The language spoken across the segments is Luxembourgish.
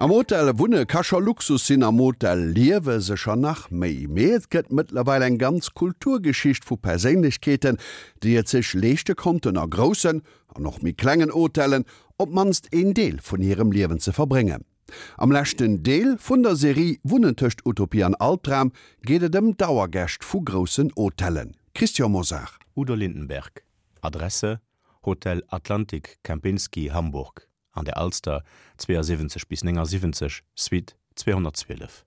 Am Hotel wunne ka scho Luxus sinn, am Hotel liewe sécher nach méi. Mee et gëtt mëttlerweil eng ganz Kulturgeschicht vu Perséinlechkeeten, déi et sech leeschte konnten, a groussen an och méi klengen Hotellen op d'mannst een Deel vun hirem Liewen ze verbréngen. Am leschten Deel vun der Serie Wunnen tëscht Utopie an Albdram geet et ëm Dauergäscht vu groussen Hotellen. Christian Mosar. Udo Lindenberg, Adresse, Hotel Atlantic Kempinski, Hamburg. An der Alster 72 bis 79, Suite 212.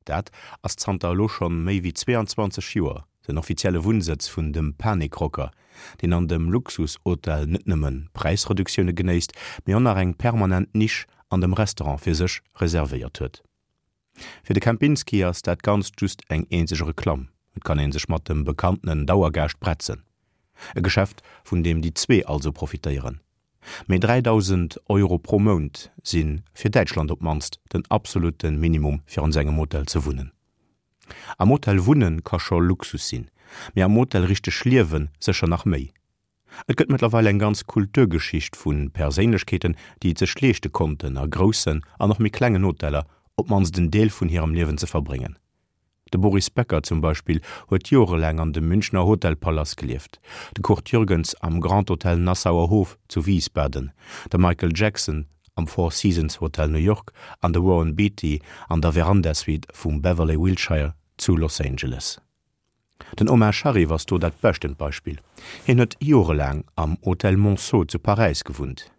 Dat ass zanter elo schonn méi wéi 22 Joer den offizielle Wunnsëtz vun dem Panikrocker, deen an dem Luxushotel net nëmme Präisreduktioune genéisst, mee och nach eng permanent Nisch an dem Restaurant fir sech reservéiert huet. Fir de Kempinski ass dat Ganzt just eng eenzeg Reklamm, et kann ee sech mat dem bekanntenen Dauergaascht bretzen. E Geschäft, vun deem déi zwee also profitéieren. Mee 3.000 Euro pro Mount si fir Däitschland op d'mannst den absolutte Minimum fir an esou engem Hotel ze wunnen. Am Hotel wunne ka scho Luxus sinn, mee am Hotel richteg liewe sécher nach méi. Et gëtt mëttlerweil eng ganz Kulturgeschicht vu Perséinlechkeeten, déi et sech leeschte konnten, a groussen an och méi klengen Hoteller op d'mannst en Deel vun hirem Liewen ze verbréngen. De Boris Becker zum Beispill huet jorelaang an dem Münchner Hotel Palace gelieft, de Kurt Jürgens am Grand Hotel Nassauer Hof zu Wiesbaden, de Michael Jackson am Four Seasons Hotel New York an de Warren Beatty an der Veranda-Suite vum Beverly Wilshire zu Los Angeles. Den Omar Sharif ass do dat beschtent Beispill. Hien huet jorelaang am Hotel Monceau zu Paräis gewunnt.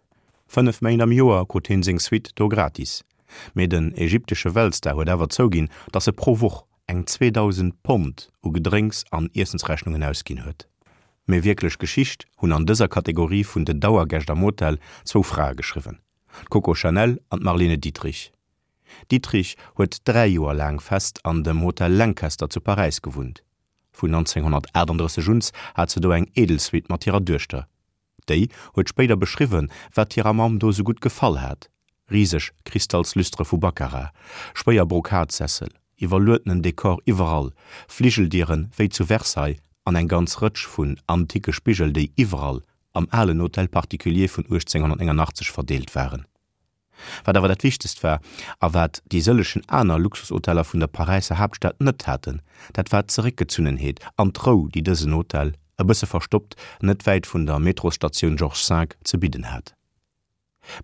5 Méint am Joer krut hien seng Suite do gratis. Mee den ägyptesche Weltstar huet awer zouginn, dass e pro Woch eng 2.000 Pond u Gedrénks an Iessensrechnungen ausginn huet. Mee wierklech Geschicht hunn an dëser Kategorie vun den Dauergäscht am Hotel zwou Frae geschriwwen, d'Coco Chanel an d'Marlene Dietrich. Dietrich huet 3 Joer laang fest an dem Hotel Lancaster zu Paräis gewunnt. Vun 1938 uns hat se do eng Edelsuite mat hirer Duechter. Déi huet spéider beschriwwen, wat hirer Mamm do sou gutt gefall hat, riseg Kristallslüstere vu Baccarat, schwéier Brokatsessel, iwwerluedenen Dekor iwwerall, Fligeldieren wéi zu Versailles an eng ganz Rëtsch vun anticke Spigel, déi iwwerall am alen Hôtel particulier vun 1889 verdeelt waren. Wat awer dat Wichtegst war, a wat déi sëllechen aner Luxushoteller vun der Paräisser Haaptstad net haten, dat war d'Zeréckgezunnenheet an d'Rou, déi dësen Hotel, e bësse verstoppt, net wäit vun der Metrosstatioun Georges V, ze bidden hat.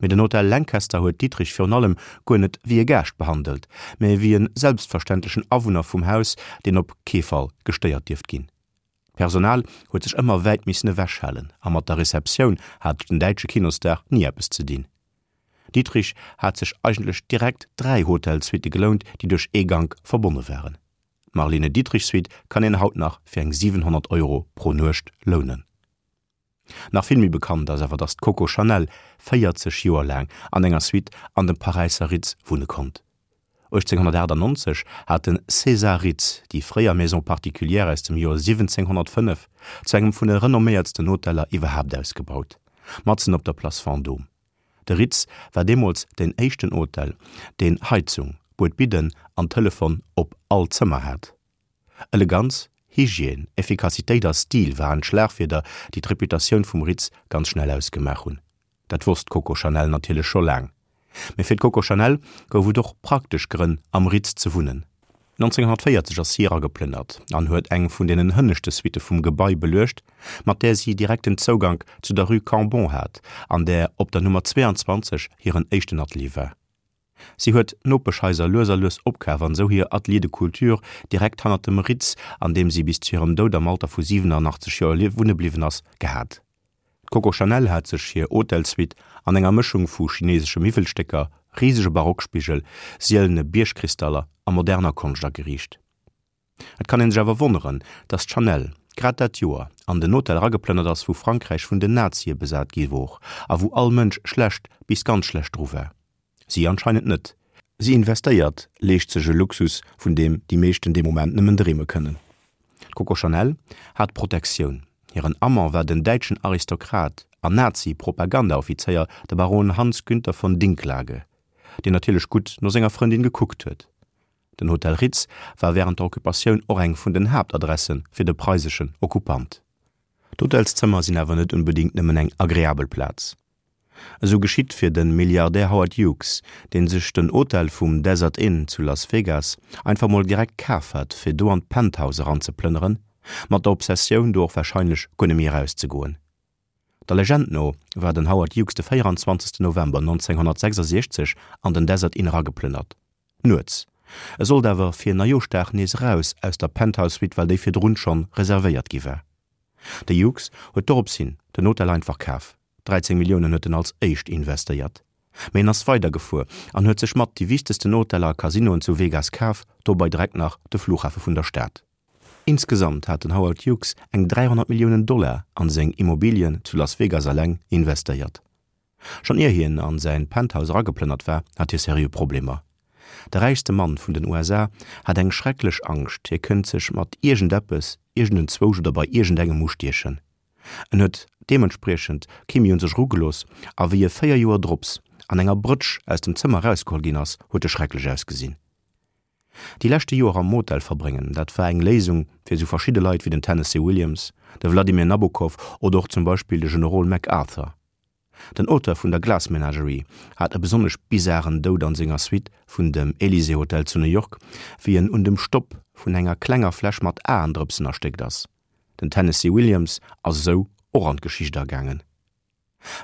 Mee den Hotel Lancaster huet Dietrich virun allem guer net wéi e Gaascht behandelt, mä wéi e selbstverständlechen Awunner vum Haus, deen op kee Fall gestéiert dierft ginn. D'Personal huet sech ëmmer wäit missen ewech halen a mat der Receptioun hat den däitsche Kinostar ni eppes ze dinn. Dietrich hat sech eigentlech direkt 3 Hotelsuitte gelount, déi duerch ee Gank verbonne waren. D'Marlene Dietrich Suite kann een haut nach fir eng 700 Euro pro Nuecht lounen. Nach vill méi bekannt ass awer, datt d'Coco Chanel 40 Joer laang an enger Suite an dem Paräisser Ritz wunne konnt. 1898 hat de César Ritz déi fréier Maison particulière aus dem Joer 1705 zu engem vun de renomméiertsten Hoteller iwwerhaapt ausgebaut, matzen op der Place Vendôme. De Ritz war deemools deen éischten Hotel, deen Heizung, Buedbidden an Telefon op all Zëmmer hat. Eleganz, Hygiène, Effikassitéit a Stil waren d'Schlagwierder, déi d'Reputatioun vum Ritz ganz schnell ausgemaach hunn. Dat wosst d'Coco Chanel natierlech scho laang. Mee fir d'Coco Chanel gouf et och praktesch Grënn, am Ritz ze wunnen. 1940 ass si erageplënnert an huet eng vun deenen hënneschte Suitte vum Gebai beluecht, mat där si direkten Zougank zu der Rue Cambon hat, an där op der Nummer 22 hiren éischten Atelier war. Si huet d'Nopeschhaiser lues a lues opkaf an esou hir Atelier de couture direkt hannert dem Ritz, an deem si bis zu hirem Doud am Alter vu 87 Joer wunne bliwwen ass, gehat. D'Coco Chanel hat sech hir Hotelsuite an enger Mëschung vu chinesesche Miwwelstécker, risege Barockspigel, sielene Biergkristaller a moderner Konscht ageriicht. Et kann ee sech awer wonneren, datt d'Chanel grad dat Joer an den Hotel erageplënnert ass, wou Frankräich vun den Nazie besat gi wor a wou all Mënsch schlecht bis ganz schlecht dru war. Si anscheinend net. Si investéiert, leescht sech e Luxus, vun deem déi meeschten dee Moment nëmmen dreeme kënnen. D'Coco Chanel hat Protektioun. Hiren Amant war den däitschen Aristokrat an Nazi-Propagandaoffizéier, de Baron Hans Günther von Dincklage, deen natierlech gutt no senger Frëndin gekuckt huet. Den Hotel Ritz war wärend der Occupatioun och eng vun den Haaptadresse fir de preiseschen Okkupant. D'Hotelszëmmer sinn awer net onbedéngt nëmmen eng agreabel Plaz. Esou geschitt fir de Milliardär Howard Hughes, dee sech den Hotel vum Desert Inn zu Las Vegas einfach mol direkt kaf hat, fir do an d'Penthouse eranzeplënneren, mat der Obsessioun, do och warscheinlech guer net méi erauszegoen. Der Legend no war den Howard Hughes de 24 November 1966 an den Desert Inn erageplënnert. Nuets. E sollt awer fir Neijooschdag nees eraus aus der Penthouse Suite, well déi virdrun schonn reservéiert gi war. De Hughes huet dorops hin den Hotel einfach kaf. 13 Milliounen huet en als éischt investéiert. Mee en ass weider gefuer an huet sech mat déi wichtegsten Hoteller a Casinoen zu Vegas kaf, dobei direkt nach de Flughafe vun der Stad. Insgesamt hat den Howard Hughes eng 300 Milliounen Dollar an seng Immobilien zu Las Vegas eleng investéiert. Schonn ier hien an säin Penthouse erageplënnert war, hat hie seriö Problemer. De räichste Mann vun den USA hat eng schrecklech Angscht, hie kënnt sech mat iergendeppes, iergendenzwousch oder bei iergendengem ustiechen. En huet deementspriechend kee méi un sech erugelooss a wéi e 4 Joer drops an enger Brëtsch aus dem Zëmmer erausgeholl ginn ass, huet e schrecklech ausgesinn. Déi leschte Joer am Motel verbréngen, dat war eng Léisung fir esou verschidde Leit wéi den Tennessee Williams, de Vladimir Nabokov oder och zum Beispill de Generol MacArthur. Den Auteur vun der Glass Menagerie hat e besonnesch bizaren Doud an senger Suite vun dem Elysée Hotel zu New York, wéi en un dem Stopp vun enger klenger Fläsch mat Aendrëpsen erstéckt ass. Den Tennessee Williams ass esou och an d'Geschicht agaangen.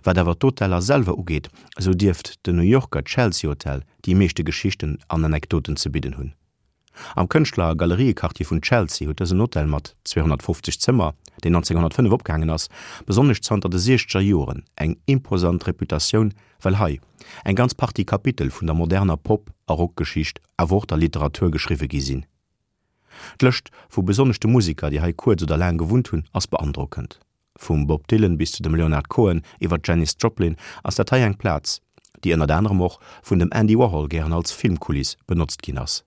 Wat awer d'Hoteller selwer ugeet, esou dierft den New Yorker Chelsea Hotel déi meeschte Geschichten an Anekdoten ze bidden hunn. Am Kënschtler a Galeriequartier vun Chelsea huet dësen Hotel mat 250 Zëmmer, deen 1905 opgaangen ass, besonnesch zanter de siechzeger Joren eng imposant Reputatioun, well hei eng ganz Partie Kapitel vun der moderner Pop a Rockgeschicht, awer och der Literatur geschriwwe gi sinn. D'Lëscht vu besonnesch de Museker, déi hei kuerz oder laang gewunnt hunn, ass beandrockend. Vum Bob Dylan bis zu dem Leonard Cohen iwwer d'Janis Joplin ass dat hei eng Plaz, déi ënnert anerem och vun dem Andy Warhol gären als Filmkuliss benotzt ginn ass.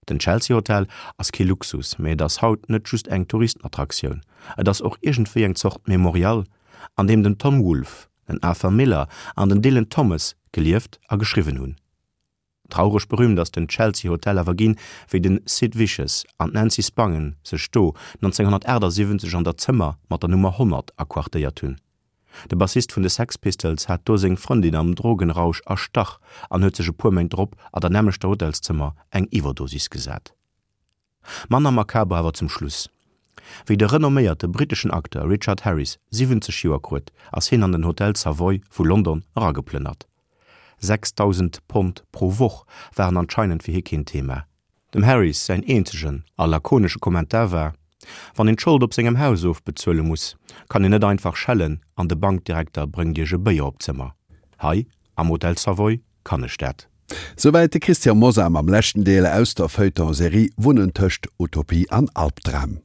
Den Chelsea Hotel ass kee Luxus, mee et ass haut net just eng Touristenattraktioun, et ass och iergendwéi eng Zort Memorial, an deem den Tom Wolfe, den Arthur Miller an den Dylan Thomas gelieft a geschriwwen hunn. Traureg berühmt ass den Chelsea Hotel awer ginn, wéi den Sid Vicious an d'Nancy Spangen sech do 1978 an der Zëmmer mat der Nummer 100 aquartéiert hunn. De Bassist vun de Sex Pistols hat do seng Frëndin am Drogenrausch erstach an huet sech e puer Méint drop an der nämmlechter Hotelszëmmer eng Iwwerdosis gesat. Manner makaber awer zum Schluss. Wéi de renomméierte britteschen Acteur Richard Harris 70 Joer kruet, ass hien an den Hotel Savoy vu London erageplënnert. 6.000 Pond pro Woch waren anscheinend fir hie keen Thema. Dem Harris säin eenzegen a lakonesche Kommentar war, Wann een d'Schold op sengem Haus ofbezuele muss, kann een net einfach schellen an de Bankdirekter bréngt iech e Béier op d'Zëmmer. Hei am Hotel Savoy kann ech dat. Souwäit de Christian Mosar mam leschten Deel aus der Feuilleton-Serie Wunnen tëscht Utopie an Albdram.